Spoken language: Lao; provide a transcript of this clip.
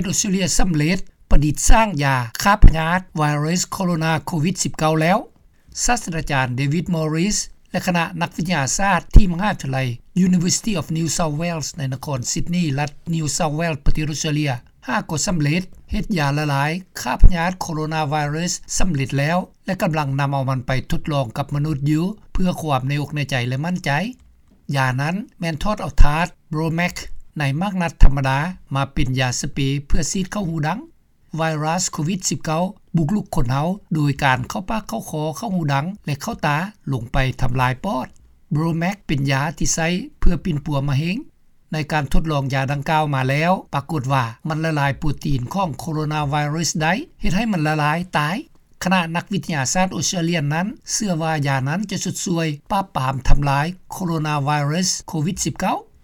ດອົດສະຕຣາເລຍສຳເລັດປະດິດສ້າງຢາຂ້າພະຍາດໄວຣັສໂຄໂຣນາໂຄວິດ-19 ແລ້ວ. ສາດສະດາຈານ David Morris ແລະຄະນະນັກວິທະຍາສາດທີ່ມະຫາວິທະຍາໄລ University of New South Wales ໃນນະຄອນຊິດນີ ລັດ New South Wales ປະເທດອົດສະຕຣາເລຍ ຫາກໍສຳເລັດເຮັດຢາລະລາຍຂ້າພະຍາດໂຄໂຣນາໄວຣັສສຳເລັດແລ້ວ ແລະກຳລັງນຳເອົາມັນໄປທົດລອງກັບມະນຸດຢູ່ ເພື່ອຄວາມໃນອົກໃນໃຈ ແລະໝັ້ນໃຈ. ຢານັ້ນແມ່ນຖອດເອົາທາດ Bromax ໃນໝາກນັດທຳມະດາ ມາເປັນຢາສະເປເພື່ອສີດເຂົ້າຫູດັງ. ໄວຣັສໂຄວິດ-19 ບຸກລຸກຄົນເຮົາໂດຍການເຂົ້າປາກເຂົ້າຄໍ ເຂົ້າຫູດັງ ແລະເຂົ້າຕາ ລົງໄປທຳລາຍປອດ. Bromax ເປັນຢາທີ່ໃຊ້ເພື່ອປິ່ນປົວມະເຮັງ. ໃນການທົດລອງຢາດັ່ງກ່າວມາແລ້ວ ປາກົດວ່າມັນລະລາຍໂປຣຕີນຂອງໂຄໂຣນາໄວຣັສໄດ້ ເຮັດໃຫ້ມັນລະລາຍຕາຍ. ຄະນະນັກວິທະຍາສາດອົດສະຕຣາເລຍນັ້ນເຊື່ອວ່າຢານັ້ນຈະຊຸດຊ່ວຍປາບປາມທຳລາຍໂຄໂຣນາໄວຣັສໂຄວິດ-19.